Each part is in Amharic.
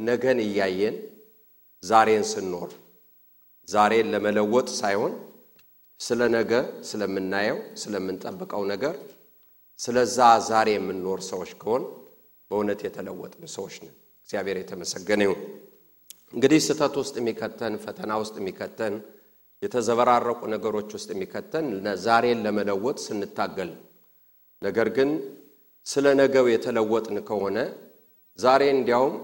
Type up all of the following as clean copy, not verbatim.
ነገን እያየን ዛሬን ስንኖር ዛሬን ለመለወጥ ሳይሆን ስለ ነገ ስለምናየው ስለምንጠብቀው ነገር ስለዛ ዛሬ የምንኖር ሰዎች ከሆን በእውነት የተለወጥን ሰዎች ነን። እግዚአብሔር የተመሰገነ ይሁን። እንግዲህ ስተት ውስጥ የሚከተን ፈተና ውስጥ የሚከተን የተዘበራረቁ ነገሮች ውስጥ የሚከተን ዛሬን ለመለወጥ ስንታገል ነገር ግን ስለ ነገው የተለወጥን ከሆነ ዛሬ እንዲያውም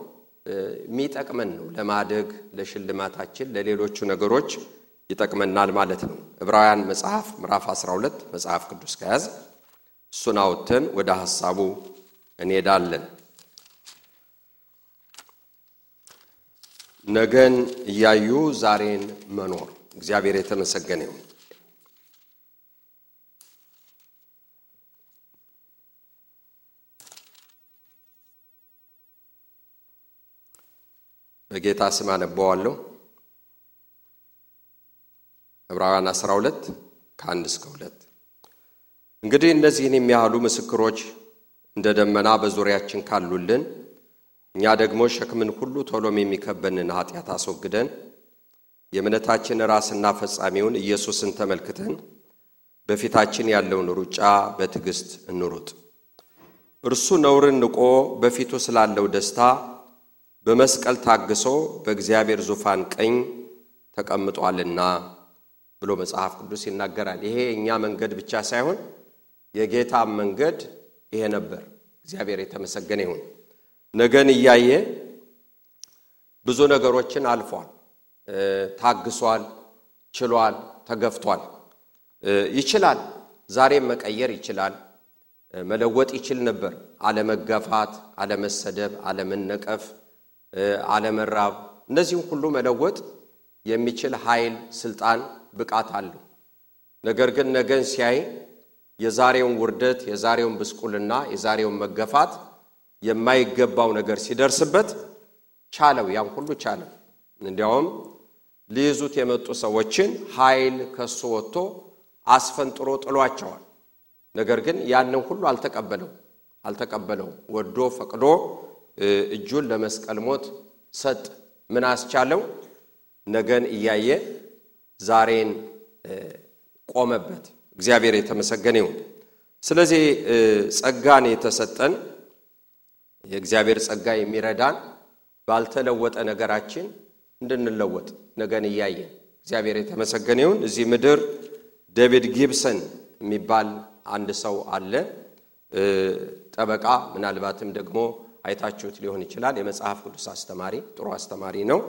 የሚጠቅመን ነው ለማደግ ለሽልማታችን ለሌሎቹ ነገሮች ይጠቅመናል ማለት ነው። ዕብራውያን መጽሐፍ ምዕራፍ 12 መጽሐፍ ቅዱስ ከያዝ እሱን አውጥተን ወደ ሐሳቡ እንሄዳለን። ነገን እያዩ ዛሬን መኖር እግዚአብሔር የተመሰገነ ይሁን። በጌታ ስም አነባዋለሁ። ዕብራውያን 12 ከ1 እስከ 2 እንግዲህ እነዚህን የሚያህሉ ምስክሮች እንደ ደመና በዙሪያችን ካሉልን እኛ ደግሞ ሸክምን ሁሉ ቶሎም የሚከበንን ኃጢአት አስወግደን የእምነታችን ራስና ፈጻሚውን ኢየሱስን ተመልክተን በፊታችን ያለውን ሩጫ በትዕግስት እንሩጥ። እርሱ ነውርን ንቆ በፊቱ ስላለው ደስታ በመስቀል ታግሶ በእግዚአብሔር ዙፋን ቀኝ ተቀምጧልና ብሎ መጽሐፍ ቅዱስ ይናገራል። ይሄ እኛ መንገድ ብቻ ሳይሆን የጌታ መንገድ ይሄ ነበር። እግዚአብሔር የተመሰገነ ይሁን። ነገን እያየ ብዙ ነገሮችን አልፏል፣ ታግሷል፣ ችሏል፣ ተገፍቷል። ይችላል፣ ዛሬም መቀየር ይችላል፣ መለወጥ ይችል ነበር። አለመገፋት፣ አለመሰደብ፣ አለመነቀፍ፣ አለመራብ እነዚህን ሁሉ መለወጥ የሚችል ኃይል፣ ስልጣን፣ ብቃት አለው። ነገር ግን ነገን ሲያይ የዛሬውን ውርደት፣ የዛሬውን ብስቁልና፣ የዛሬውን መገፋት የማይገባው ነገር ሲደርስበት ቻለው፣ ያን ሁሉ ቻለው። እንዲያውም ሊይዙት የመጡ ሰዎችን ኃይል ከሱ ወጥቶ አስፈንጥሮ ጥሏቸዋል። ነገር ግን ያንን ሁሉ አልተቀበለው። ወዶ ፈቅዶ እጁን ለመስቀል ሞት ሰጥ። ምን አስቻለው? ነገን እያየ ዛሬን ቆመበት። እግዚአብሔር የተመሰገነ ይሁን። ስለዚህ ጸጋን የተሰጠን የእግዚአብሔር ጸጋ የሚረዳን ባልተለወጠ ነገራችን እንድንለወጥ ነገን እያየ እግዚአብሔር የተመሰገነ ይሁን። እዚህ ምድር ዴቪድ ጊብሰን የሚባል አንድ ሰው አለ። ጠበቃ፣ ምናልባትም ደግሞ አይታችሁት ሊሆን ይችላል። የመጽሐፍ ቅዱስ አስተማሪ፣ ጥሩ አስተማሪ ነው።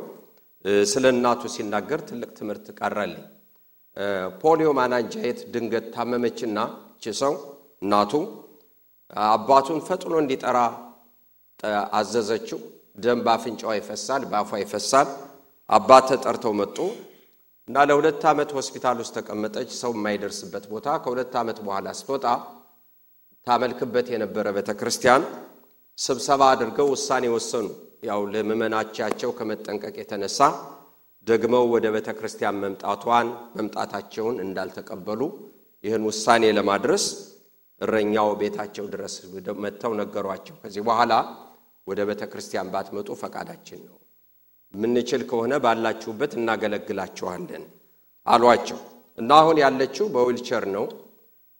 ስለ እናቱ ሲናገር ትልቅ ትምህርት ቀረልኝ። ፖሊዮ ማናንጃየት ድንገት ታመመችና እቺ ሰው እናቱ አባቱን ፈጥኖ እንዲጠራ አዘዘችው። ደም ባፍንጫው ይፈሳል፣ ባፏ ይፈሳል። አባት ተጠርተው መጡ እና ለ2 ዓመት ሆስፒታል ውስጥ ተቀመጠች። ሰው የማይደርስበት ቦታ። ከ2 ዓመት በኋላ ስትወጣ ታመልክበት የነበረ ቤተክርስቲያን ስብሰባ አድርገው ውሳኔ ወሰኑ። ያው ለምእመናቻቸው ከመጠንቀቅ የተነሳ ደግመው ወደ ቤተክርስቲያን መምጣታቸውን እንዳልተቀበሉ ይህን ውሳኔ ለማድረስ እረኛው ቤታቸው ድረስ መጥተው ነገሯቸው። ከዚህ በኋላ ወደ ቤተክርስቲያን ባትመጡ ፈቃዳችን ነው፣ ምንችል ከሆነ ባላችሁበት እናገለግላችኋለን አሏቸው። እና አሁን ያለችው በዊልቸር ነው።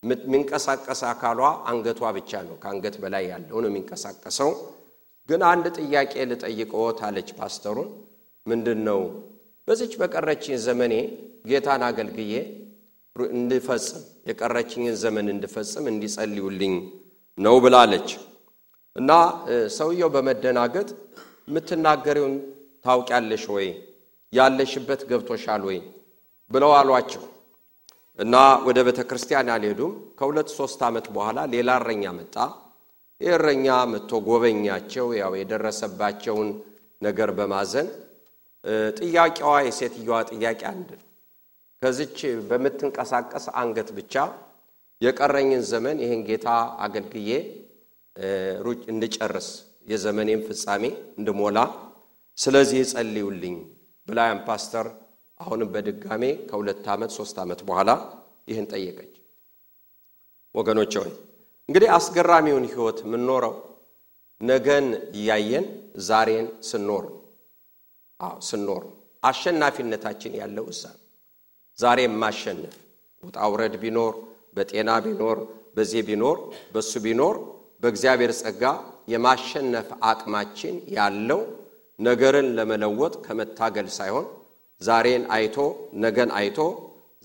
የሚንቀሳቀስ አካሏ አንገቷ ብቻ ነው፣ ከአንገት በላይ ያለው ነው የሚንቀሳቀሰው። ግን አንድ ጥያቄ ልጠይቅዎት አለች ፓስተሩን። ምንድነው? በዚች በቀረችኝ ዘመኔ ጌታን አገልግዬ እንድፈጽም የቀረችኝን ዘመን እንድፈጽም እንዲጸልዩልኝ ነው ብላለች። እና ሰውየው በመደናገጥ የምትናገሪውን ታውቂያለሽ ወይ? ያለሽበት ገብቶሻል ወይ? ብለው አሏቸው። እና ወደ ቤተክርስቲያን አልሄዱም። ከ2-3 ዓመት በኋላ ሌላ እረኛ መጣ። እረኛ መጥቶ ጎበኛቸው። ያው የደረሰባቸውን ነገር በማዘን ጥያቄዋ የሴትዮዋ ጥያቄ አንድ ከዚች በመትንቀሳቀስ አንገት ብቻ የቀረኝን ዘመን ይሄን ጌታ አገልግዬ ሩጭ እንድጨርስ የዘመኔን ፍጻሜ እንድሞላ ስለዚህ ጸልዩልኝ ብላም ፓስተር አሁንም በድጋሜ ከ2 ዓመት 3 ዓመት በኋላ ይህን ጠየቀች። ወገኖቼ ሆይ እንግዲህ አስገራሚውን ህይወት ምን ኖረው ነገን እያየን ዛሬን ስንኖር ስንኖር አሸናፊነታችን ያለው እዛ ዛሬ ማሸነፍ ውጣውረድ ቢኖር በጤና ቢኖር በዚህ ቢኖር በሱ ቢኖር በእግዚአብሔር ጸጋ የማሸነፍ አቅማችን ያለው ነገርን ለመለወጥ ከመታገል ሳይሆን ዛሬን አይቶ ነገን አይቶ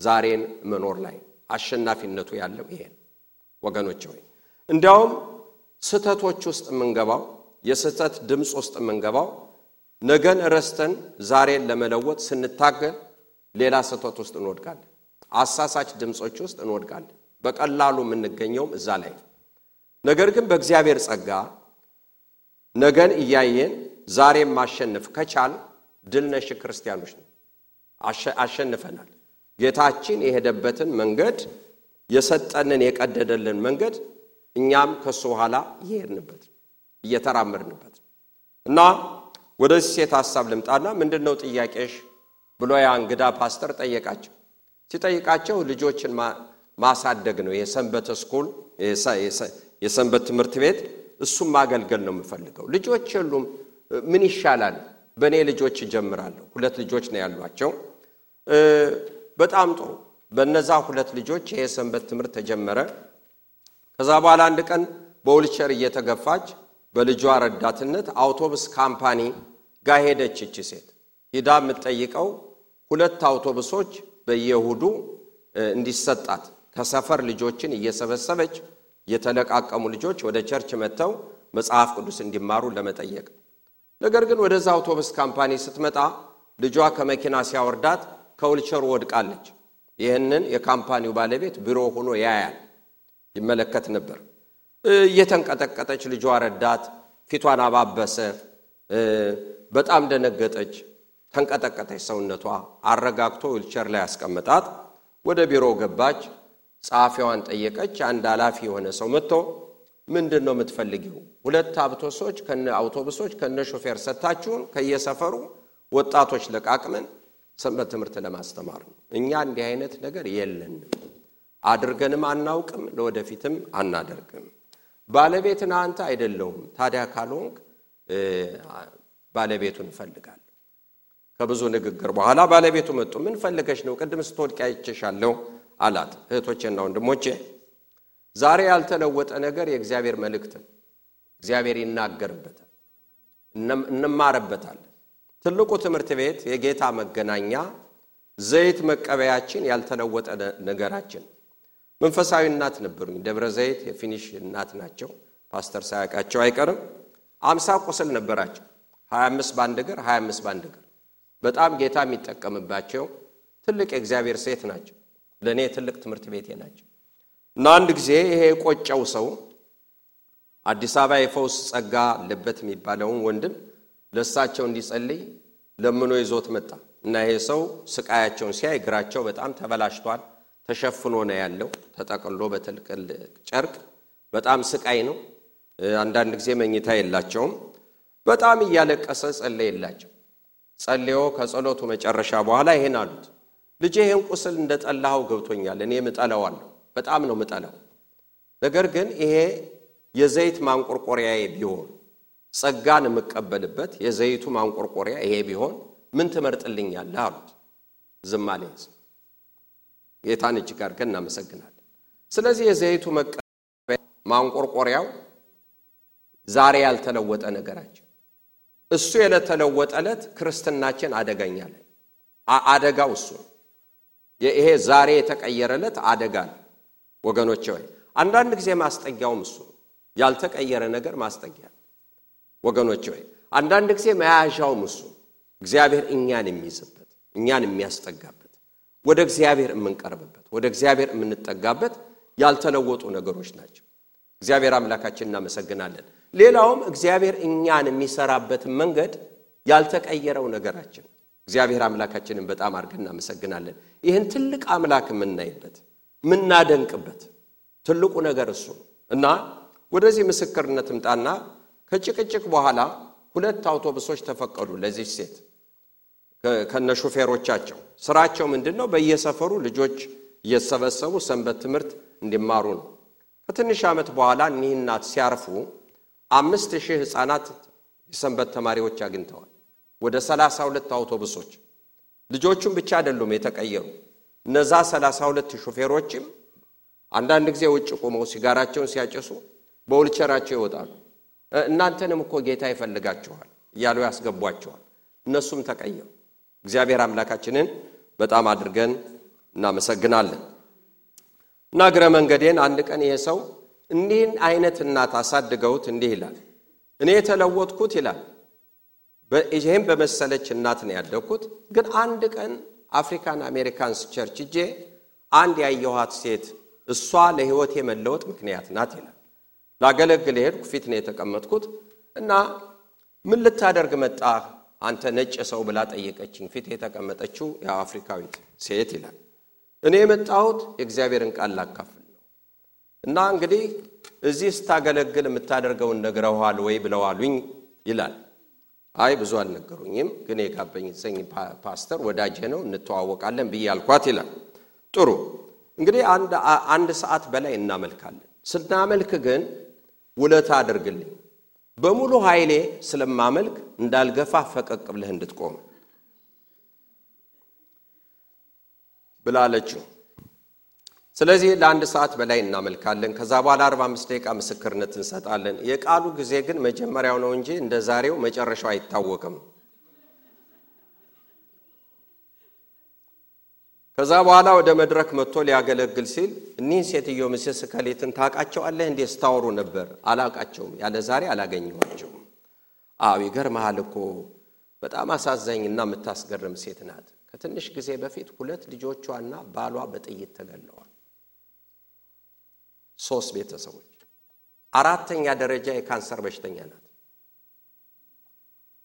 ዛሬን መኖር ላይ አሸናፊነቱ ያለው ይሄ ወገኖች ሆይ እንዲያውም ስተቶች ውስጥ መንገባው የስተት ድምጽ ውስጥ መንገባው ነገን ረስተን ዛሬን ለመለወጥ ስንታገል ሌላ ስተት ውስጥ እንወድቃለን አሳሳች ድምጾች ውስጥ እንወድቃለን በቀላሉ የምንገኘው እዛ ላይ ነገር ግን በእግዚአብሔር ጸጋ ነገን እያየን ዛሬን ማሸነፍ ከቻል ድል ነሽ ክርስቲያኖች ነው አሸንፈናል ጌታችን የሄደበትን መንገድ የሰጠንን የቀደደልን መንገድ እኛም ከሱ ኋላ ይሄድንበት እየተራመድንበት እና ወደዚህ ሴት ሐሳብ ልምጣና ምንድነው ጥያቄሽ ብሎ ያ እንግዳ ፓስተር ጠየቃቸው ሲጠይቃቸው ልጆችን ማሳደግ ነው የሰንበት ስኩል የሰንበት ትምህርት ቤት እሱም ማገልገል ነው የምፈልገው ልጆች ሁሉም ምን ይሻላል በኔ ልጆች ጀምራለሁ ሁለት ልጆች ነው ያሏቸው በጣም ጥሩ በነዛ ሁለት ልጆች የሰንበት ትምህርት ተጀመረ ከዛ በኋላ አንድ ቀን በዊልቸር እየተገፋች በልጇ ረዳትነት አውቶቡስ ካምፓኒ ጋር ሄደች እቺ ሴት ሄዳ የምትጠይቀው ሁለት አውቶቡሶች በየሁዱ እንዲሰጣት ከሰፈር ልጆችን እየሰበሰበች የተለቃቀሙ ልጆች ወደ ቸርች መተው መጽሐፍ ቅዱስ እንዲማሩ ለመጠየቅ ነገር ግን ወደዛ አውቶቡስ ካምፓኒ ስትመጣ ልጇ ከመኪና ሲያወርዳት ከዊልቸር ወድቃለች ይሄንን የካምፓኒው ባለቤት ቢሮ ሆኖ ያያል ይመለከት ነበር እየተንቀጠቀጠች ልጇ ረዳት ፊቷን አባበሰ በጣም ደነገጠች ተንቀጠቀጠች ሰውነቷ አረጋግቶ ዊልቸር ላይ ያስቀመጣት ወደ ቢሮ ገባች ጻፊዋን ጠየቀች አንድ ኃላፊ የሆነ ሰው መጥቶ ምንድነው የምትፈልጊው ሁለት አውቶቡሶች ከነ ሾፌር ሰጣችሁን ከየሰፈሩ ወጣቶች ለቃቅመን ሰንበት ትምህርት ለማስተማር ነው እኛ እንዲህ አይነት ነገር የለንም አድርገንም አናውቅም ለወደፊትም አናደርግም ባለቤትና አንተ አይደለም ታዲያ ካልሆንክ ባለቤቱን ፈልጋለሁ ከብዙ ንግግር በኋላ ባለቤቱ መጥቶ ምን ፈልገሽ ነው ቅድም ስትወድቂ አይቼሻለሁ አላት እህቶቼና ወንድሞቼ ዛሬ ያልተለወጠ ነገር የእግዚአብሔር መልእክት እግዚአብሔር ይናገርበታል እንማርበታል ትልቁ ትምህርት ቤት የጌታ መገናኛ ዘይት መቀበያችን ያልተለወጠ ነገራችን መንፈሳዊ እናት ነበሩኝ ደብረ ዘይት የፊኒሽ እናት ናቸው ፓስተር ሳያቃቸው አይቀርም 50 ቁስል ነበራቸው 25 ባንድ እግር 25 ባንድ እግር በጣም ጌታ የሚጠቀምባቸው ትልቅ የእግዚአብሔር ሴት ናቸው ለኔ ትልቅ ትምህርት ቤቴ ናቸው እና አንድ ጊዜ ይሄ ቆጨው ሰው አዲስ አበባ የፈውስ ጸጋ ለበት የሚባለውን ወንድም ለሳቸው እንዲጸልይ ለምኖ ይዞት መጣ እና ይሄ ሰው ስቃያቸውን ሲያይ እግራቸው በጣም ተበላሽቷል ተሸፍኖ ነው ያለው ተጠቅሎ በትልቅል ጨርቅ በጣም ስቃይ ነው አንዳንድ ጊዜ መኝታ የላቸውም በጣም እያለቀሰ ጸለየላቸው ጸልዮ ከጸሎቱ መጨረሻ በኋላ ይሄን አሉት ልጄ ይሄን ቁስል እንደጠላው ገብቶኛል እኔ ምጠላዋለሁ በጣም ነው ምጠላው ነገር ግን ይሄ የዘይት ማንቆርቆሪያዬ ቢሆን ጸጋን መቀበልበት የዘይቱ ማንቆርቆሪያ ይሄ ቢሆን ምን ትመርጥልኛለህ አሉት ዝም አለ ጌታን እጅግ አድርገን እናመሰግናለን ስለዚህ የዘይቱ ማንቆርቆሪያው ዛሬ ያልተለወጠ ነገራችን እሱ የለተለወጠለት ክርስትናችን አደጋኛ ላይ አደጋው እሱ ይሄ ዛሬ የተቀየረለት አደጋ ወገኖቼ ሆይ አንዳንድ ጊዜ ማስጠጊያው እሱ ያልተቀየረ ነገር ማስጠጊያ ወገኖቼ ሆይ አንዳንድ ጊዜ መያዣው እሱ እግዚአብሔር እኛን የሚይዝበት እኛን የሚያስጠጋበት ወደ እግዚአብሔር የምንቀርብበት ወደ እግዚአብሔር የምንጠጋበት ያልተለወጡ ነገሮች ናቸው እግዚአብሔር አምላካችንን እናመሰግናለን ሌላውም እግዚአብሔር እኛን የሚሰራበት መንገድ ያልተቀየረው ነገራችን እግዚአብሔር አምላካችንን በጣም አድርገን እናመሰግናለን ይሄን ትልቅ አምላክ የምናይበት ምናደንቅበት ትልቁ ነገር እሱ እና ወደዚህ ምስክርነት ምጣና ከጭቅጭቅ በኋላ ሁለት አውቶቡሶች ተፈቀዱ ለዚህ ሴት ከነ ሾፌሮቻቸው ስራቸው ምንድነው በየሰፈሩ ልጆች እየሰበሰቡ ሰንበት ትምህርት እንዲማሩ ነው ከትንሽ ዓመት በኋላ እኒህናት ሲያርፉ 5000 ህፃናት የሰንበት ተማሪዎች አግኝተዋል። ወደ 32 አውቶቡሶች ልጆቹም ብቻ አይደሉም የተቀየሩ። እነዛ 32 ሾፌሮችም አንዳንድ ጊዜ ውጭ ቆመው ሲጋራቸውን ሲያጨሱ በውልቸራቸው ይወጣሉ። እናንተንም እኮ ጌታ ይፈልጋችኋል እያሉ ያስገቧቸዋል። እነሱም ተቀየሩ። እግዚአብሔር አምላካችንን በጣም አድርገን እናመሰግናለን። ናግረ መንገዴን አንድ ቀን ይሄ ሰው እንዲህን አይነት እናት አሳድገውት እንዲህ ይላል፣ እኔ የተለወጥኩት ይላል በእጄም በመሰለች እናት ነው ያደግኩት። ግን አንድ ቀን አፍሪካን አሜሪካንስ ቸርች ሄጄ አንድ ያየኋት ሴት እሷ ለህይወቴ መለወጥ ምክንያት ናት ይላል። ላገለግል ሄድኩ። ፊት ነው የተቀመጥኩት እና ምን ልታደርግ መጣህ አንተ ነጭ ሰው ብላ ጠየቀችኝ። ፊት የተቀመጠችው የአፍሪካዊት ሴት ይላል። እኔ የመጣሁት የእግዚአብሔርን ቃል ላካፍል ነው እና እንግዲህ እዚህ ስታገለግል የምታደርገውን ነግረዋል ወይ ብለዋሉኝ ይላል። አይ ብዙ አልነገሩኝም፣ ግን የጋበኝ ፓስተር ወዳጄ ነው እንተዋወቃለን ብያልኳት ይላል። ጥሩ እንግዲህ አንድ ሰዓት በላይ እናመልካለን። ስናመልክ ግን ውለታ አድርግልኝ፣ በሙሉ ኃይሌ ስለማመልክ እንዳልገፋ ፈቀቅ ብለህ እንድትቆም ብላለችው። ስለዚህ ለአንድ ሰዓት በላይ እናመልካለን። ከዛ በኋላ 45 ደቂቃ ምስክርነት እንሰጣለን። የቃሉ ጊዜ ግን መጀመሪያው ነው እንጂ እንደ ዛሬው መጨረሻው አይታወቅም። ከዛ በኋላ ወደ መድረክ መጥቶ ሊያገለግል ሲል እኒህን ሴትዮ ምስስ ከሌትን ታውቃቸዋለህ እንዴ ስታወሩ ነበር? አላውቃቸውም፣ ያለ ዛሬ አላገኘኋቸውም። ይገርምሃል እኮ በጣም አሳዛኝና የምታስገርም ሴት ናት። ከትንሽ ጊዜ በፊት 2 ልጆቿና ባሏ በጥይት ተገለዋል። 3 ቤተሰቦች። 4ኛ ደረጃ የካንሰር በሽተኛ ናት።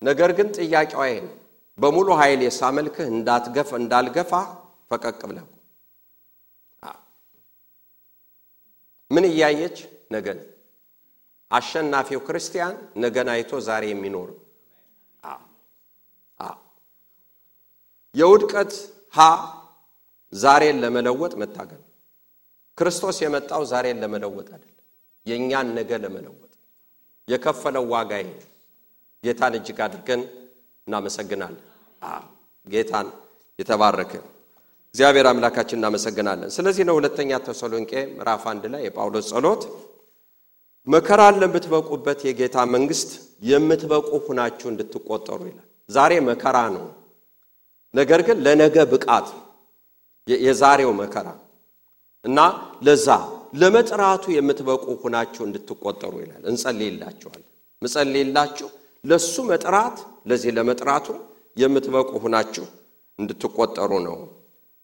ነገር ግን ጥያቄዋ ይሄ ነው፣ በሙሉ ኃይል ሳመልክህ እንዳልገፋ ፈቀቅ ብለህ ምን እያየች ነገን አሸናፊው ክርስቲያን ነገን አይቶ ዛሬ የሚኖር የውድቀት ዛሬን ለመለወጥ መታገል። ክርስቶስ የመጣው ዛሬን ለመለወጥ አይደለም፣ የኛን ነገ ለመለወጥ የከፈለው ዋጋ ይሄ። ጌታን እጅግ አድርገን እናመሰግናለን። ጌታን የተባረከ እግዚአብሔር አምላካችን እናመሰግናለን። ስለዚህ ነው ሁለተኛ ተሰሎንቄ ምዕራፍ 1 ላይ የጳውሎስ ጸሎት መከራን ለምትበቁበት የጌታ መንግስት የምትበቁ ሆናችሁ እንድትቆጠሩ ይላል። ዛሬ መከራ ነው፣ ነገር ግን ለነገ ብቃት የዛሬው መከራ እና ለዛ ለመጥራቱ የምትበቁ ሆናችሁ እንድትቆጠሩ ይላል። እንጸልይላችኋለን። መጸልይላችሁ ለሱ መጥራት ለዚህ ለመጥራቱ የምትበቁ ሆናችሁ እንድትቆጠሩ ነው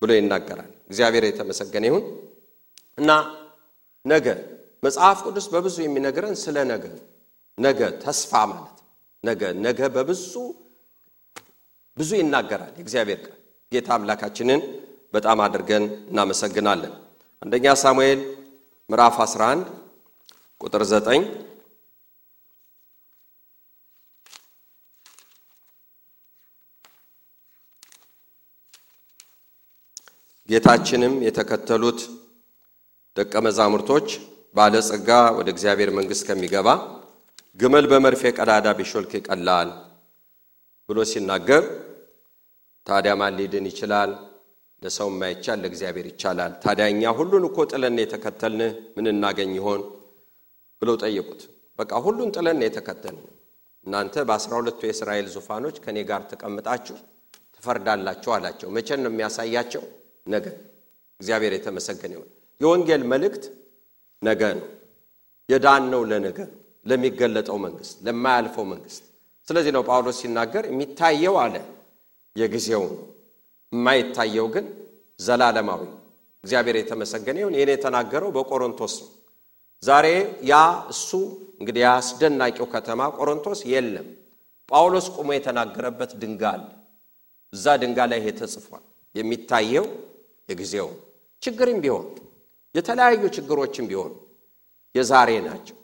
ብሎ ይናገራል። እግዚአብሔር የተመሰገነ ይሁን። እና ነገ መጽሐፍ ቅዱስ በብዙ የሚነግረን ስለ ነገ ተስፋ ማለት ነገ በብዙ ይናገራል እግዚአብሔር ቃል። ጌታ አምላካችንን በጣም አድርገን እናመሰግናለን። አንደኛ ሳሙኤል ምዕራፍ 11 ቁጥር 9 ጌታችንም የተከተሉት ደቀ መዛሙርቶች ባለጸጋ ወደ እግዚአብሔር መንግስት ከሚገባ ግመል በመርፌ ቀዳዳ ቢሾልክ ይቀላል ብሎ ሲናገር፣ ታዲያ ማን ሊድን ይችላል? ለሰው የማይቻል ለእግዚአብሔር ይቻላል። ታዲያኛ ሁሉን እኮ ጥለን የተከተልን ምን እናገኝ ይሆን ብለው ጠየቁት። በቃ ሁሉን ጥለን የተከተልን እናንተ በ12ቱ የእስራኤል ዙፋኖች ከኔ ጋር ተቀምጣችሁ ትፈርዳላችሁ አላቸው። መቼ ነው የሚያሳያቸው? ነገ። እግዚአብሔር የተመሰገነ ይሁን። የወንጌል መልእክት ነገ ነው። የዳን ነው ለነገ ለሚገለጠው መንግስት ለማያልፈው መንግስት። ስለዚህ ነው ጳውሎስ ሲናገር የሚታየው አለ የጊዜው ነው፣ የማይታየው ግን ዘላለማዊ። እግዚአብሔር የተመሰገነ ይሁን። ይሄን የተናገረው በቆሮንቶስ ነው። ዛሬ ያ እሱ እንግዲህ ያስደናቂው ከተማ ቆሮንቶስ የለም። ጳውሎስ ቆሞ የተናገረበት ድንጋይ አለ። እዛ ድንጋይ ላይ ተጽፏል። የሚታየው የጊዜው ችግርም ቢሆን የተለያዩ ችግሮችም ቢሆን የዛሬ ናቸው።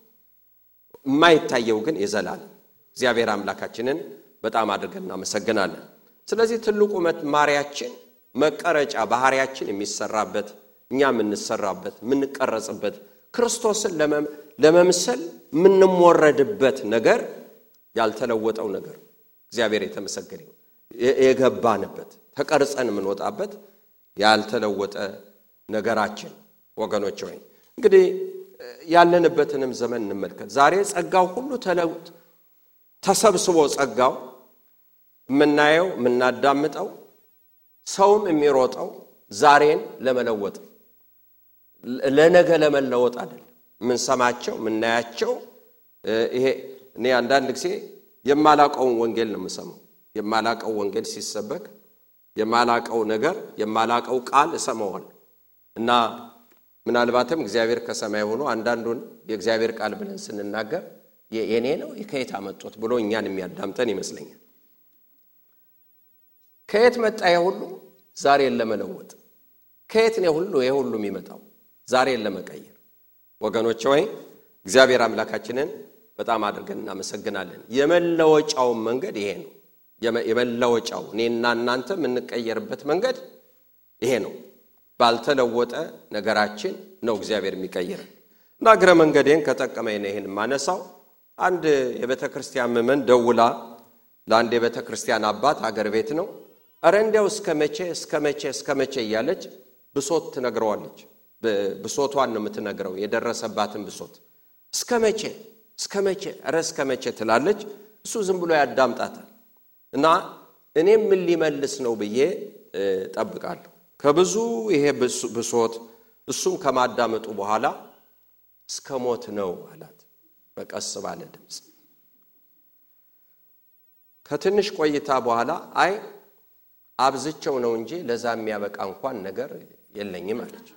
የማይታየው ግን የዘላለም። እግዚአብሔር አምላካችንን በጣም አድርገን እናመሰግናለን። ስለዚህ ትልቁ መማሪያችን መቀረጫ ባህሪያችን የሚሰራበት እኛ የምንሰራበት የምንቀረጽበት ክርስቶስን ለመምሰል ምንሞረድበት ነገር ያልተለወጠው ነገር እግዚአብሔር የተመሰገነ ይሁን የገባንበት ተቀርጸን ምንወጣበት ያልተለወጠ ነገራችን ወገኖች ሆይ እንግዲህ ያለንበትንም ዘመን እንመልከት ዛሬ ጸጋው ሁሉ ተሰብስቦ ጸጋው ምናየው ምናዳምጠው ሰውም የሚሮጠው ዛሬን ለመለወጥ ለነገ ለመለወጥ አይደለም ምን ሰማቸው ምናያቸው ይሄ እኔ አንዳንድ ጊዜ የማላቀው ወንጌል ነው የምሰማው የማላቀው ወንጌል ሲሰበክ የማላቀው ነገር የማላቀው ቃል እሰማዋል እና ምናልባትም እግዚአብሔር ከሰማይ ሆኖ አንዳንዱን የእግዚአብሔር ቃል ብለን ስንናገር የኔ ነው ከየት አመጡት ብሎ እኛን የሚያዳምጠን ይመስለኛል ከየት መጣ ሁሉ ዛሬን ለመለወጥ ከየት ነው ሁሉ ሁሉ የሚመጣው ዛሬን ለመቀየር ወገኖች ሆይ እግዚአብሔር አምላካችንን በጣም አድርገን እናመሰግናለን የመለወጫው መንገድ ይሄ ነው የመለወጫው እኔና እናንተ ምንቀየርበት መንገድ ይሄ ነው ባልተለወጠ ነገራችን ነው እግዚአብሔር የሚቀየረን እና ግረ መንገዴን ከጠቀመኝ ነው ይሄን ማነሳው አንድ የቤተክርስቲያን መመን ደውላ ለአንድ የቤተክርስቲያን አባት አገር ቤት ነው አረንዴው እስከመቼ እያለች ብሶት ትነግረዋለች ብሶቷን ነው የምትነግረው የደረሰባትን ብሶት እስከመቼ ትላለች እሱ ዝም ብሎ ያዳምጣታል እና እኔም ምን ሊመልስ ነው ብዬ ጠብቃለሁ ከብዙ ይሄ ብሶት እሱም ከማዳመጡ በኋላ እስከሞት ነው አላት በቀስ ባለ ድምጽ ከትንሽ ቆይታ በኋላ አይ አብዝቸው ነው እንጂ ለዛ የሚያበቃ እንኳን ነገር የለኝም አለች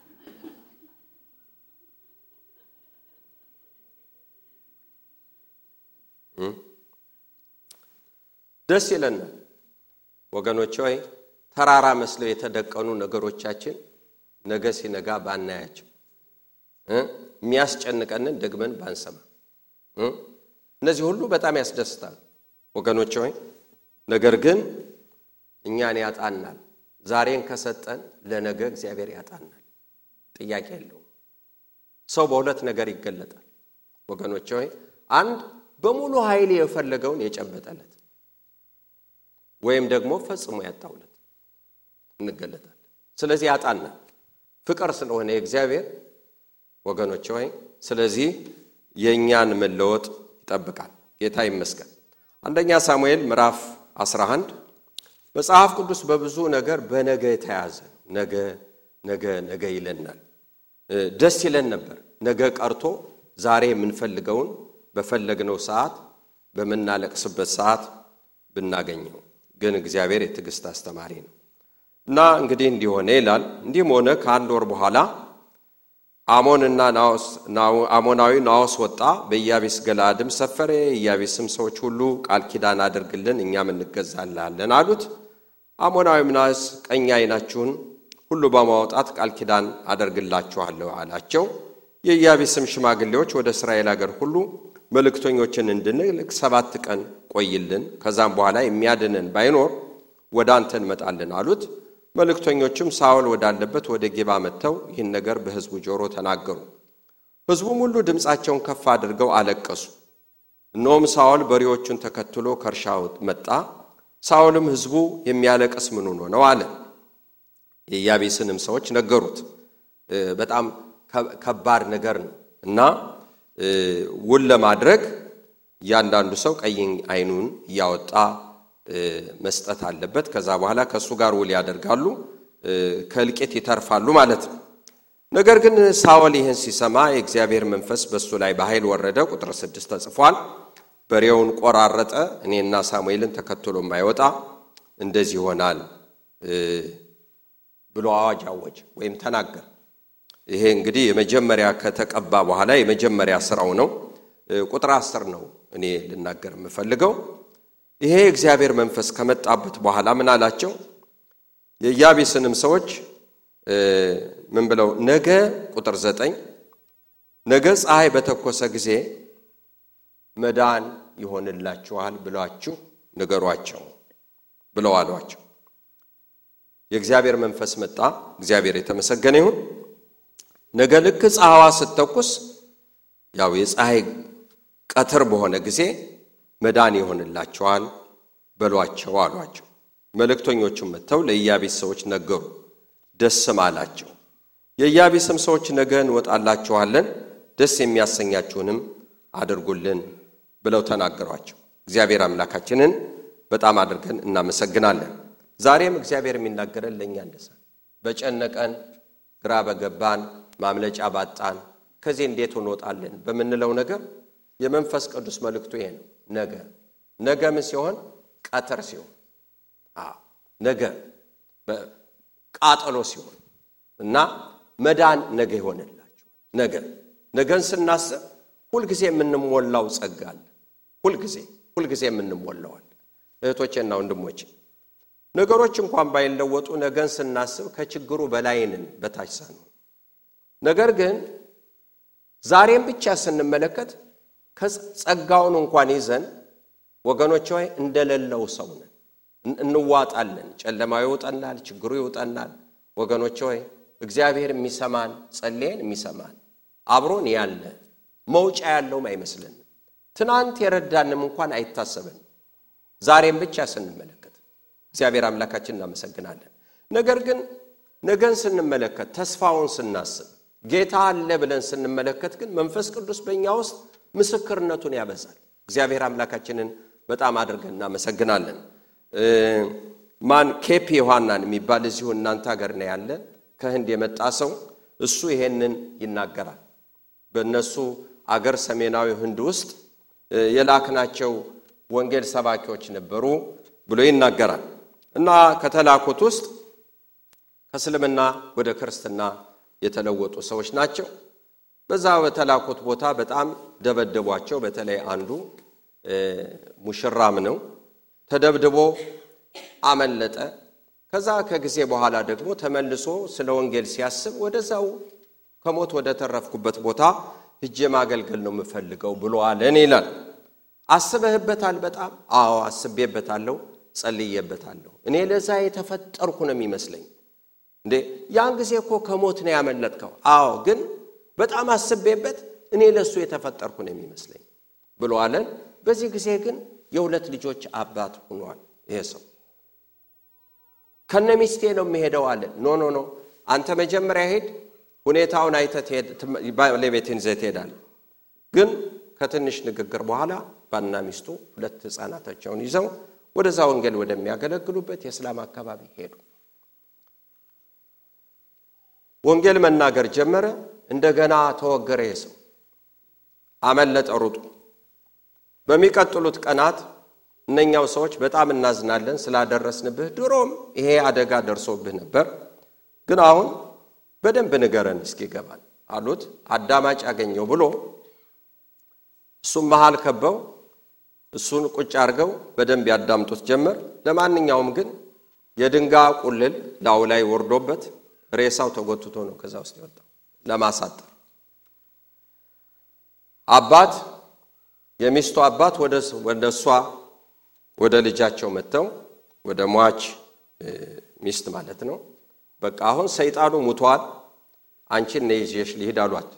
ደስ ይለናል ወገኖች ሆይ ተራራ መስለው የተደቀኑ ነገሮቻችን ነገ ሲነጋ ባናያቸው የሚያስጨንቀንን ደግመን ባንሰማ እነዚህ ሁሉ በጣም ያስደስታል ወገኖች ሆይ ነገር ግን እኛን ያጣናል ዛሬን ከሰጠን ለነገ እግዚአብሔር ያጣናል ጥያቄ የለውም ሰው በሁለት ነገር ይገለጣል ወገኖች ሆይ አንድ በሙሉ ኃይል የፈለገውን የጨበጠለት ወይም ደግሞ ፈጽሞ ያጣውለት እንገለጣለን ስለዚህ ያጣናል ፍቅር ስለሆነ እግዚአብሔር ወገኖች ሆይ ስለዚህ የኛን መለወጥ ይጠብቃል ጌታ ይመስገን አንደኛ ሳሙኤል ምዕራፍ 11 መጽሐፍ ቅዱስ በብዙ ነገር በነገ ተያዘ ነገ ይለናል ደስ ይለን ነበር ነገ ቀርቶ ዛሬ የምንፈልገውን በፈለግነው ሰዓት በመናለቅስበት ሰዓት ብናገኘው ግን እግዚአብሔር የትግስት አስተማሪ ነው እና እንግዲህ እንዲሆነ ይላል እንዲህም ሆነ ከአንድ ወር በኋላ አሞናዊ ናዖስ ወጣ በኢያቢስ ገለዓድም ሰፈረ ኢያቢስም ሰዎች ሁሉ ቃል ኪዳን አድርግልን እኛም እንገዛልሃለን አሉት አሞናዊም ናዖስ ቀኝ ዓይናችሁን ሁሉ በማውጣት ቃል ኪዳን አደርግላችኋለሁ አላቸው የኢያቢስም ሽማግሌዎች ወደ እስራኤል ሀገር ሁሉ መልእክተኞችን እንድንልክ 7 ቀን ቆይልን ከዛም በኋላ የሚያድነን ባይኖር ወደ አንተ እንመጣለን አሉት መልእክተኞችም ሳኦል ወዳለበት ወደ ጌባ መጥተው ይህን ነገር በሕዝቡ ጆሮ ተናገሩ ሕዝቡም ሁሉ ድምጻቸውን ከፍ አድርገው አለቀሱ እነሆም ሳኦል በሬዎቹን ተከትሎ ከርሻው መጣ ሳኦልም ሕዝቡ የሚያለቅስ ምን ሆኖ ነው አለ የኢያቢስንም ሰዎች ነገሩት በጣም ከባድ ነገር ነው እና ውል ለማድረግ ያንዳንዱ ሰው ቀኝ ዓይኑን ያወጣ መስጠት አለበት ከዛ በኋላ ከሱ ጋር ውል ያደርጋሉ ከልቄት ይተርፋሉ ማለት ነው ነገር ግን ሳኦል ይህን ሲሰማ የእግዚአብሔር መንፈስ በሱ ላይ በኃይል ወረደ ቁጥር 6 ተጽፏል በሬውን ቆራረጠ እኔና ሳሙኤልን ተከትሎ ማይወጣ እንደዚህ ይሆናል ብሎ አዋጅ አወጀ ወይም ተናገረ ይሄ እንግዲህ የመጀመሪያ ከተቀባ በኋላ የመጀመሪያ ስራው ነው ቁጥር 10 ነው እኔ ልናገር የምፈልገው ይሄ እግዚአብሔር መንፈስ ከመጣበት በኋላ ምን አላቸው የኢያቢስንም ሰዎች ምን ብለው ነገ ቁጥር 9 ነገ ፀሐይ በተኮሰ ጊዜ መዳን ይሆንላችኋል ብላችሁ ንገሯቸው ብለው አሏቸው የእግዚአብሔር መንፈስ መጣ እግዚአብሔር የተመሰገነ ይሁን ነገ ልክ ፀሐይዋ ስትተኩስ ያው የፀሐይ ቀትር በሆነ ጊዜ መዳን ይሆንላቸዋል በሏቸው አሏቸው። መልእክተኞቹም መጥተው ለኢያቢስ ሰዎች ነገሩ፣ ደስም አላቸው። የኢያቢስም ሰዎች ነገ እንወጣላችኋለን፣ ደስ የሚያሰኛችሁንም አድርጉልን ብለው ተናገሯቸው። እግዚአብሔር አምላካችንን በጣም አድርገን እናመሰግናለን። ዛሬም እግዚአብሔር የሚናገረን ለኛ እንደዛ በጨነቀን ግራ በገባን ማምለጫ ባጣን ከዚህ እንዴት እንወጣለን በመንለው ነገር የመንፈስ ቅዱስ መልእክቱ ይሄ ነው። ነገ ምን ሲሆን ቀትር ሲሆን ነገ በቃጠሎ ሲሆን እና መዳን ነገ ይሆንላችሁ። ነገን ስናስብ ሁሉ ጊዜ የምንሞላው ጸጋ አለ። ሁሉ ጊዜ የምንሞላው አለ። እህቶቼና ወንድሞቼ ነገሮች እንኳን ባይለወጡ ነገን ስናስብ ከችግሩ በላይንን በታች ሳንሆን፣ ነገር ግን ዛሬም ብቻ ስንመለከት ከጸጋውን እንኳን ይዘን ወገኖች ሆይ እንደሌለው ሰው ነን፣ እንዋጣለን። ጨለማው ይውጠናል፣ ችግሩ ይውጠናል። ወገኖች ሆይ እግዚአብሔር የሚሰማን ጸልየን የሚሰማን አብሮን ያለ መውጫ ያለውም አይመስልንም። ትናንት የረዳንም እንኳን አይታሰብን። ዛሬም ብቻ ስንመለከት እግዚአብሔር አምላካችንን እናመሰግናለን። ነገር ግን ነገን ስንመለከት ተስፋውን ስናስብ ጌታ አለ ብለን ስንመለከት ግን መንፈስ ቅዱስ በእኛ ውስጥ ምስክርነቱን ያበዛል። እግዚአብሔር አምላካችንን በጣም አድርገን እናመሰግናለን። ኬፒ ዮሐናን የሚባል እዚሁ እናንተ ሀገር ነው ያለ ከህንድ የመጣ ሰው እሱ ይሄንን ይናገራል። በእነሱ አገር ሰሜናዊ ህንድ ውስጥ የላክናቸው ወንጌል ሰባኪዎች ነበሩ ብሎ ይናገራል። እና ከተላኩት ውስጥ ከእስልምና ወደ ክርስትና የተለወጡ ሰዎች ናቸው። በዛ በተላኩት ቦታ በጣም ደበደቧቸው። በተለይ አንዱ ሙሽራም ነው፣ ተደብድቦ አመለጠ። ከዛ ከጊዜ በኋላ ደግሞ ተመልሶ ስለ ወንጌል ሲያስብ ወደዛው ከሞት ወደ ተረፍኩበት ቦታ ሄጄ ማገልገል ነው የምፈልገው ብሎ አለን ይላል። አስበህበታል? በጣም አዎ አስቤበታለሁ፣ ጸልዬበታለሁ። እኔ ለዛ የተፈጠርኩ ነው የሚመስለኝ። እንዴ ያን ጊዜ እኮ ከሞት ነው ያመለጥከው። አዎ ግን በጣም አስቤበት እኔ ለሱ የተፈጠርኩ ነው የሚመስለኝ ብሎ አለን። በዚህ ጊዜ ግን የሁለት ልጆች አባት ሆኗል ይሄ ሰው። ከነሚስቴ ነው የሚሄደው አለ። ኖ አንተ መጀመሪያ ሄድ፣ ሁኔታውን አይተህ ለቤትን ዘትሄዳለህ። ግን ከትንሽ ንግግር በኋላ ባልና ሚስቱ ሁለት ህፃናታቸውን ይዘው ወደዛ ወንጌል ወደሚያገለግሉበት የእስላም አካባቢ ሄዱ። ወንጌል መናገር ጀመረ። እንደገና ተወገረ ይሄ ሰው፣ አመለጠ ሩጡ። በሚቀጥሉት ቀናት እነኛው ሰዎች በጣም እናዝናለን ስላደረስንብህ፣ ድሮም ይሄ አደጋ ደርሶብህ ነበር፣ ግን አሁን በደንብ ንገረን እስኪገባን አሉት። አዳማጭ ያገኘው ብሎ እሱም መሃል ከበው እሱን ቁጭ አድርገው በደንብ ያዳምጡት ጀመር። ለማንኛውም ግን የድንጋይ ቁልል ላው ላይ ወርዶበት ሬሳው ተጎትቶ ነው ከዛ ውስጥ የወጣው ለማሳጠር። አባት የሚስቱ አባት ወደሷ ወደ ልጃቸው መተው ወደ ሟች ሚስት ማለት ነው፣ በቃ አሁን ሰይጣኑ ሙቷል፣ አንቺን ነይ ይዤሽ ልሂድ አሏት።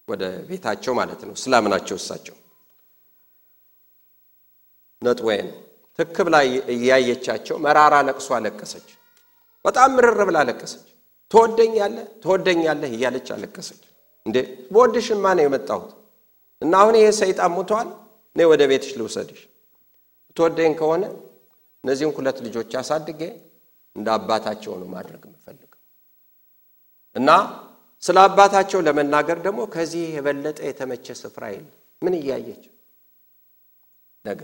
ወደ ቤታቸው ማለት ነው። እስላም ናቸው እሳቸው። ነጥወይን ትክብ ላይ እያየቻቸው መራራ ለቅሶ አለቀሰች። በጣም ምርር ብላ አለቀሰች። ትወደኛለህ እያለች አለቀሰች። እንዴ በወድሽማ ነው የመጣሁት እና አሁን ይሄ ሰይጣን ሙቷል፣ ነይ ወደ ቤትሽ ልውሰድሽ። ትወደኝ ከሆነ እነዚህን ሁለት ልጆች አሳድጌ እንደ አባታቸው ነው ማድረግ የምፈልገው እና ስለ አባታቸው ለመናገር ደግሞ ከዚህ የበለጠ የተመቸ ስፍራ የለም። ምን እያየች ነገ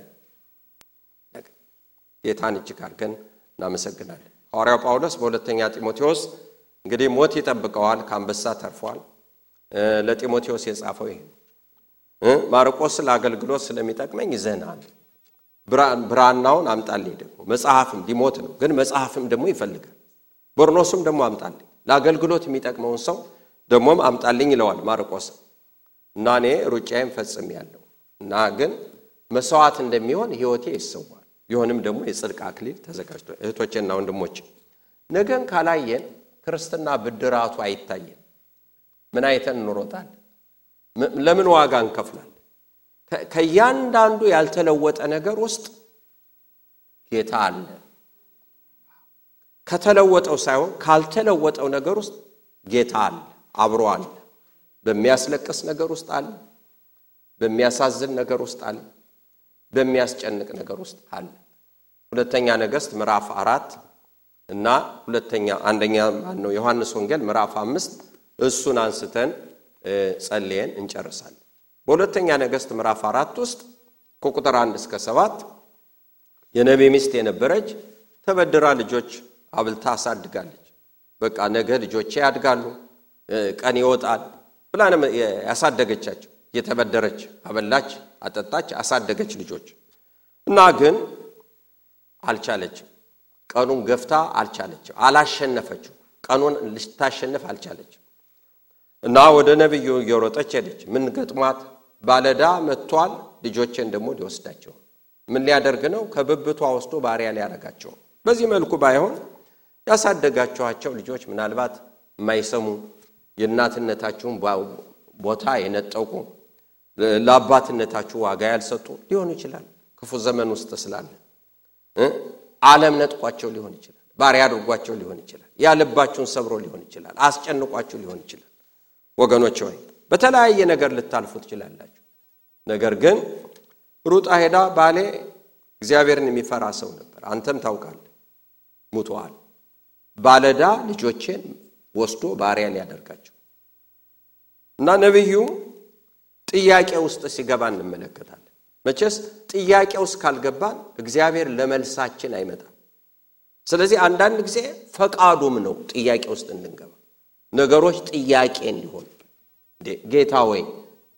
ጌታን እጅግ አድርገን እናመሰግናለን። ሐዋርያው ጳውሎስ በሁለተኛ ጢሞቴዎስ እንግዲህ ሞት ይጠብቀዋል፣ ከአንበሳ ተርፏል። ለጢሞቴዎስ የጻፈው ይሄ ማርቆስ ለአገልግሎት ስለሚጠቅመኝ ይዘናል፣ ብራናውን አምጣልኝ። ደግሞ መጽሐፍም ሊሞት ነው ግን መጽሐፍም ደግሞ ይፈልጋል። በርኖስም ደግሞ አምጣልኝ፣ ለአገልግሎት የሚጠቅመውን ሰው ደሞም አምጣልኝ ይለዋል ማርቆስ። እና እኔ ሩጫዬን ፈጽሜያለሁ እና ግን መስዋዕት እንደሚሆን ሕይወቴ ይሰዋል፣ ይሆንም ደግሞ የጽድቅ አክሊል ተዘጋጅቷል። እህቶቼና ወንድሞቼ ነገን ካላየን ክርስትና ብድራቱ አይታየን። ምን አይተን እንሮጣለን? ለምን ዋጋ እንከፍላለን? ከያንዳንዱ ያልተለወጠ ነገር ውስጥ ጌታ አለ። ከተለወጠው ሳይሆን ካልተለወጠው ነገር ውስጥ ጌታ አለ፣ አብሮ አለ። በሚያስለቅስ ነገር ውስጥ አለ፣ በሚያሳዝን ነገር ውስጥ አለ፣ በሚያስጨንቅ ነገር ውስጥ አለ። ሁለተኛ ነገሥት ምዕራፍ 4 እና አንደኛ ነው ዮሐንስ ወንጌል ምዕራፍ 5 እሱን አንስተን ጸልየን እንጨርሳለን። በሁለተኛ ነገሥት ምዕራፍ 4 ውስጥ ከቁጥር 1 እስከ 7 የነቢይ ሚስት የነበረች ተበድራ ልጆች አብልታ አሳድጋለች። በቃ ነገ ልጆቼ ያድጋሉ፣ ቀን ይወጣል ብላ ያሳደገቻቸው። የተበደረች አበላች፣ አጠጣች፣ አሳደገች ልጆች እና ግን አልቻለችም። ቀኑን ገፍታ አልቻለችም፣ አላሸነፈችው። ቀኑን ልታሸንፍ አልቻለችም እና ወደ ነብዩ እየሮጠች ሄደች። ምን ገጥሟት? ባለዳ መጥቷል፣ ልጆቼን ደግሞ ሊወስዳቸው። ምን ሊያደርግ ነው? ከብብቷ ወስዶ ባሪያ ሊያረጋቸው። በዚህ መልኩ ባይሆን ያሳደጋቸዋቸው ልጆች ምናልባት የማይሰሙ የእናትነታቸውን ቦታ የነጠቁ ለአባትነታቸው ዋጋ ያልሰጡ ሊሆኑ ይችላል። ክፉ ዘመን ውስጥ ስላለ ዓለም ነጥቋቸው ሊሆን ይችላል፣ ባሪያ አድርጓቸው ሊሆን ይችላል፣ ያልባቸውን ሰብሮ ሊሆን ይችላል፣ አስጨንቋቸው ሊሆን ይችላል። ወገኖች ሆይ በተለያየ ነገር ልታልፉ ትችላላችሁ። ነገር ግን ሩጣ ሄዳ ባሌ እግዚአብሔርን የሚፈራ ሰው ነበር፣ አንተም ታውቃለህ፣ ሙቷል። ባለዳ ልጆቼን ወስዶ ባሪያ ሊያደርጋቸው እና ነብዩ ጥያቄ ውስጥ ሲገባ እንመለከታለን። መቼስ ጥያቄ ውስጥ ካልገባን እግዚአብሔር ለመልሳችን አይመጣም። ስለዚህ አንዳንድ ጊዜ ፈቃዱም ነው ጥያቄ ውስጥ እንድንገባ፣ ነገሮች ጥያቄ እንዲሆኑ። ጌታ ወይ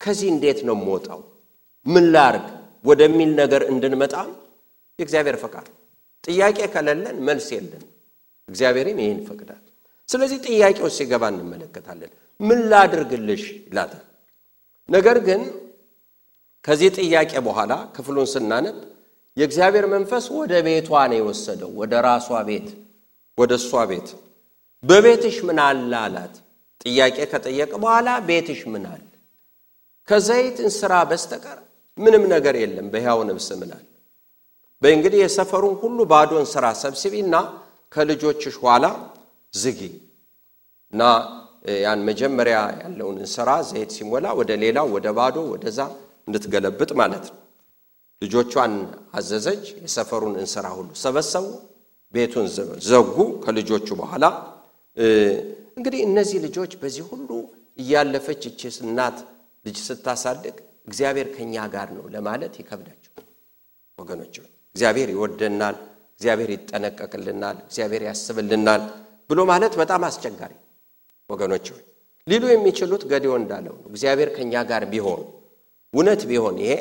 ከዚህ እንዴት ነው የምወጣው? ምን ላርግ ወደሚል ነገር እንድንመጣ የእግዚአብሔር ፈቃድ። ጥያቄ ከሌለን መልስ የለን። እግዚአብሔርም ይሄን ፈቅዳል። ስለዚህ ጥያቄው ሲገባ እንመለከታለን። ምን ላድርግልሽ ይላታል። ነገር ግን ከዚህ ጥያቄ በኋላ ክፍሉን ስናነብ የእግዚአብሔር መንፈስ ወደ ቤቷ ነው የወሰደው፣ ወደ ራሷ ቤት፣ ወደ እሷ ቤት። በቤትሽ ምን አለ አላት። ጥያቄ ከጠየቀ በኋላ ቤትሽ ምን አለ? ከዘይት እንስራ በስተቀር ምንም ነገር የለም። በሕያው ነፍስ ምላል በእንግዲህ የሰፈሩን ሁሉ ባዶ እንስራ ሰብስቢና ከልጆችሽ ኋላ ዝጊ እና ያን መጀመሪያ ያለውን እንስራ ዘይት ሲሞላ ወደ ሌላው ወደ ባዶ ወደዛ እንድትገለብጥ ማለት ነው። ልጆቿን አዘዘች። የሰፈሩን እንስራ ሁሉ ሰበሰቡ፣ ቤቱን ዘጉ። ከልጆቹ በኋላ እንግዲህ እነዚህ ልጆች በዚህ ሁሉ እያለፈች እቺ እናት ልጅ ስታሳድግ እግዚአብሔር ከኛ ጋር ነው ለማለት ይከብዳቸው። ወገኖች እግዚአብሔር ይወደናል፣ እግዚአብሔር ይጠነቀቅልናል፣ እግዚአብሔር ያስብልናል ብሎ ማለት በጣም አስቸጋሪ። ወገኖች ሊሉ የሚችሉት ገዲዮ እንዳለው ነው። እግዚአብሔር ከኛ ጋር ቢሆን እውነት ቢሆን ይሄ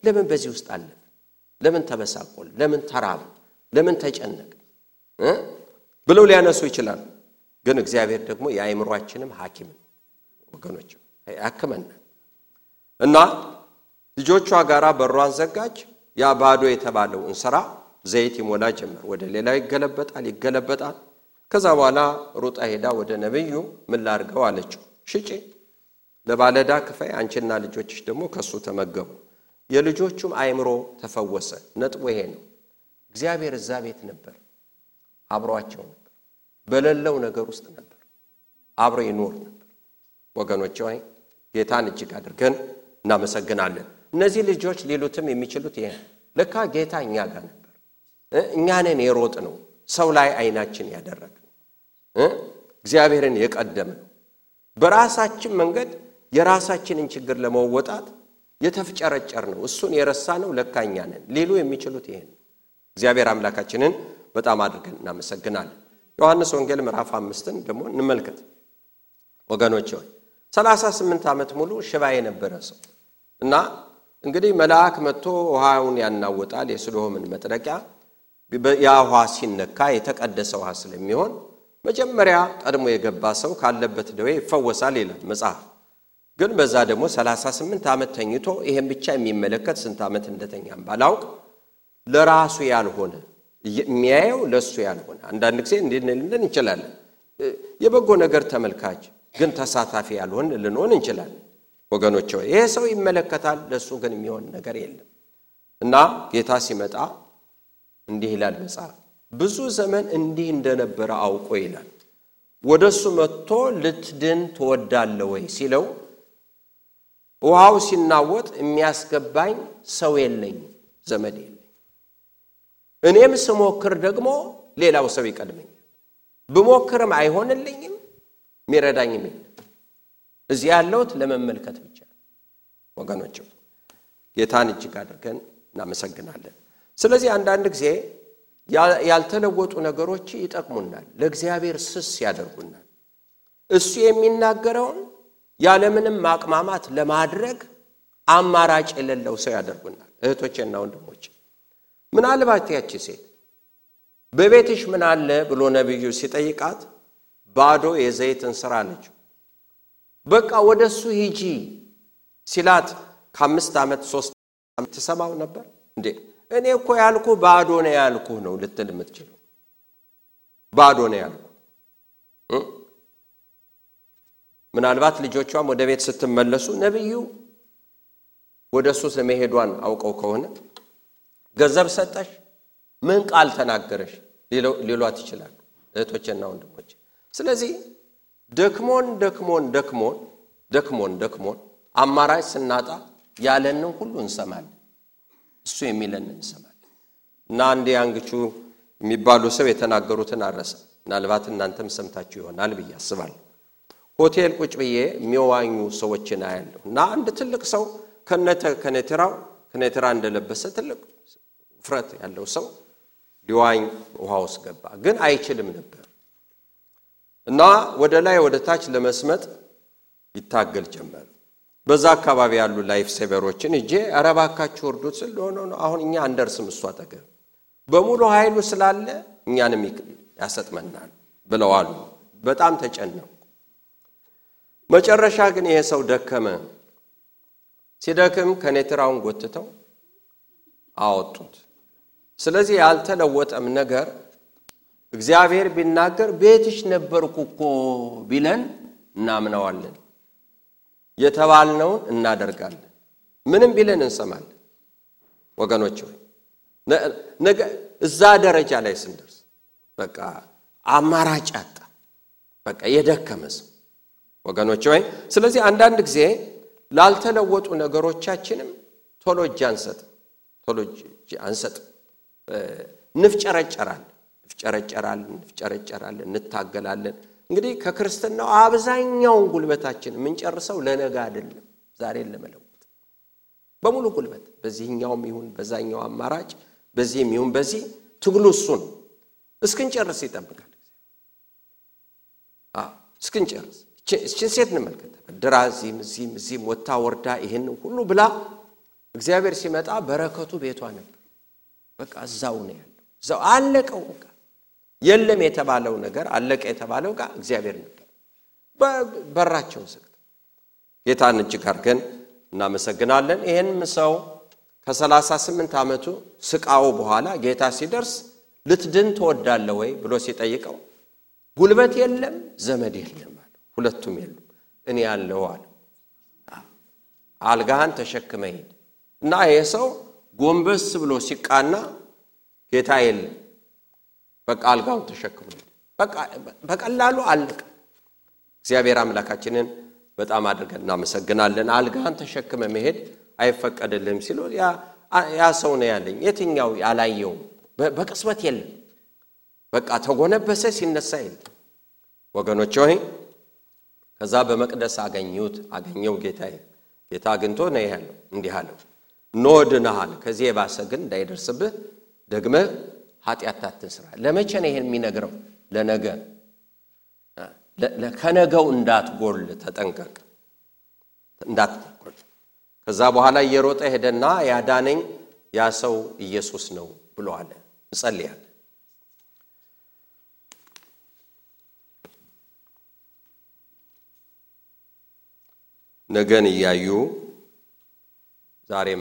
ለምን በዚህ ውስጥ አለፈ? ለምን ተበሳቆል? ለምን ተራብ? ለምን ተጨነቀ? ብለው ሊያነሱ ይችላል። ግን እግዚአብሔር ደግሞ የአእምሮአችንም ሐኪም ነው። ወገኖች ያከመና እና ልጆቿ ጋራ በሯን ዘጋች። ያ ባዶ የተባለው እንስራ ዘይት ይሞላ ጀመር። ወደ ሌላ ይገለበጣል። ከዛ በኋላ ሩጣ ሄዳ ወደ ነብዩ ምን ላርገው አለችው። ሽጪ፣ ለባለዳ ክፈይ፣ አንቺና ልጆችሽ ደግሞ ከሱ ተመገቡ። የልጆቹም አእምሮ ተፈወሰ። ነጥቡ ይሄ ነው። እግዚአብሔር እዛ ቤት ነበር፣ አብሯቸው ነበር፣ በሌለው ነገር ውስጥ ነበር፣ አብሮ ይኖር ነበር። ወገኖች ሆይ ጌታን እጅግ አድርገን እናመሰግናለን። እነዚህ ልጆች ሊሉትም የሚችሉት ይሄ ለካ ጌታ እኛ ጋር ነበር፣ እኛ ነን የሮጥ ነው፣ ሰው ላይ አይናችን ያደረግ እግዚአብሔርን የቀደም ነው። በራሳችን መንገድ የራሳችንን ችግር ለመወጣት የተፍጨረጨር ነው፣ እሱን የረሳ ነው ለካ እኛ ነን ሊሉ የሚችሉት ይሄ ነው። እግዚአብሔር አምላካችንን በጣም አድርገን እናመሰግናለን። ዮሐንስ ወንጌል ምዕራፍ 5ን ደግሞ እንመልከት። ወገኖች ሆይ 38 ዓመት ሙሉ ሽባ የነበረ ሰው እና እንግዲህ መልአክ መጥቶ ውሃውን ያናውጣል። የስሎምን መጥረቂያ ያ ውሃ ሲነካ የተቀደሰ ውሃ ስለሚሆን መጀመሪያ ቀድሞ የገባ ሰው ካለበት ደዌ ይፈወሳል ይላል መጽሐፍ። ግን በዛ ደግሞ 38 ዓመት ተኝቶ ይሄን ብቻ የሚመለከት ስንት ዓመት እንደተኛም ባላውቅ ለራሱ ያልሆነ የሚያየው ለሱ ያልሆነ አንዳንድ ጊዜ እንድንልን እንችላለን። የበጎ ነገር ተመልካች ግን ተሳታፊ ያልሆን ልንሆን እንችላለን ወገኖቼ ይሄ ሰው ይመለከታል ለሱ ግን የሚሆን ነገር የለም እና ጌታ ሲመጣ እንዲህ ይላል መጽሐፍ ብዙ ዘመን እንዲህ እንደነበረ አውቆ ይላል ወደሱ መጥቶ ልትድን ትወዳለህ ወይ ሲለው ውሃው ሲናወጥ የሚያስገባኝ ሰው የለኝ ዘመድ የለኝ እኔም ስሞክር ደግሞ ሌላው ሰው ይቀድመኛል ብሞክርም አይሆንልኝም ሚረዳኝም እዚህ ያለውት ለመመልከት ብቻ ወገኖቼ ጌታን እጅግ አድርገን እናመሰግናለን ስለዚህ አንዳንድ ጊዜ ያልተለወጡ ነገሮች ይጠቅሙናል ለእግዚአብሔር ስስ ያደርጉናል እሱ የሚናገረውን ያለምንም ማቅማማት ለማድረግ አማራጭ የሌለው ሰው ያደርጉናል እህቶቼና ወንድሞቼ ምናልባት ያቺ ሴት በቤትሽ ምን አለ ብሎ ነብዩ ሲጠይቃት ባዶ የዘይትን ስራ አለች በቃ ወደሱ ሂጂ ሲላት ከ5 ዓመት 3 ዓመት ተሰማው ነበር እንዴ እኔ እኮ ያልኩ ባዶ ነው ያልኩ ነው ልትል የምትችለው ባዶ ነው ያልኩ ምናልባት ልጆቿም ወደ ቤት ስትመለሱ ነብዩ ወደሱ ለመሄዷን አውቀው ከሆነ ገንዘብ ሰጠሽ ምን ቃል ተናገረሽ ሊሏት ይችላል እህቶቼና ወንድሞቼ ስለዚህ ደክሞን አማራጭ ስናጣ ያለንን ሁሉ እንሰማለን እሱ የሚለን እንሰማለን እና አንዴ አንግቹ የሚባሉ ሰው የተናገሩትን አረሰ ምናልባት እናንተም ሰምታችሁ ይሆናል ብዬ አስባለሁ ሆቴል ቁጭ ብዬ የሚዋኙ ሰዎችን አያለሁ እና አንድ ትልቅ ሰው ከነተራ እንደለበሰ ትልቅ ፍረት ያለው ሰው ሊዋኝ ውሃ ውስጥ ገባ ግን አይችልም ነበር እና ወደ ላይ ወደ ታች ለመስመጥ ይታገል ጀመረ በዛ አካባቢ ያሉ ላይፍ ሴቨሮችን እጄ አረባካችሁ ወርዱት ስለሆነ አሁን እኛ አንደርስም እሱ አጠገብ በሙሉ ኃይሉ ስላለ እኛንም ያሰጥመናል ብለዋል በጣም ተጨነቁ መጨረሻ ግን ይሄ ሰው ደከመ ሲደክም ከኔትራውን ጎትተው አወጡት ስለዚህ ያልተለወጠም ነገር እግዚአብሔር ቢናገር ቤትሽ ነበርኩኮ ቢለን እናምናዋለን የተባልነው እናደርጋለን ምንም ቢለን እንሰማለን ወገኖቼ ነገ እዛ ደረጃ ላይ ስንደርስ በቃ አማራጭ አጣ በቃ የደከመስ ወገኖቼ ስለዚህ አንዳንድ ጊዜ ላልተለወጡ ነገሮቻችንም ቶሎ እጅ አንሰጥ ንፍጨረጨራለን እንታገላለን እንግዲህ ከክርስትናው አብዛኛውን ጉልበታችን ምንጨርሰው ለነገ አይደለም ዛሬን ለመለወጥ በሙሉ ጉልበት በዚህኛውም ይሁን በዛኛው አማራጭ በዚህም ይሁን በዚህ ትግሉ እሱ ነው እስክንጨርስ ይጠብቃል እስክንጨርስ እቺን ሴት እንመልከት ድራዚም እዚህም ወጣ ወርዳ ይሄን ሁሉ ብላ እግዚአብሔር ሲመጣ በረከቱ ቤቷ ነበር በቃ እዛው ነው ያለው እዛው አለቀው በቃ የለም የተባለው ነገር አለቀ የተባለው ጋር እግዚአብሔር ነበር በራቸው ዘግቶ ጌታን እጅግ አድርገን እናመሰግናለን ይሄንም ሰው ከ38 ዓመቱ ስቃው በኋላ ጌታ ሲደርስ ልትድን ትወዳለህ ወይ ብሎ ሲጠይቀው ጉልበት የለም ዘመድ የለም አለ ሁለቱም የለም እኔ ያለው አለ አልጋህን ተሸክመህ ሂድ እና ይሄ ሰው ጎንበስ ብሎ ሲቃና ጌታ የለም በቃ አልጋውን ተሸክሞ በቃ በቀላሉ አለቀ እግዚአብሔር አምላካችንን በጣም አድርገን እናመሰግናለን አልጋህን ተሸክመ መሄድ አይፈቀድልህም ሲሉ ያ ሰው ነው ያለኝ የትኛው ያላየው በቅጽበት የለም በቃ ተጎነበሰ ሲነሳ የለም ወገኖቼ ሆይ ከዛ በመቅደስ አገኘው ጌታ አግኝቶ ነው ያለው እንዲህ አለው ኖድናል ከዚህ የባሰ ግን እንዳይደርስብህ ደግመህ ኃጢአት አትስራ ለመቼ ነው ይሄን የሚነግረው ለነገ ከነገው እንዳትጎል ተጠንቀቅ እንዳትጎል ከዛ በኋላ እየሮጠ ሄደና ያዳነኝ ያ ሰው ኢየሱስ ነው ብሎ አለ እንጸልያለን ነገን ያዩ ዛሬ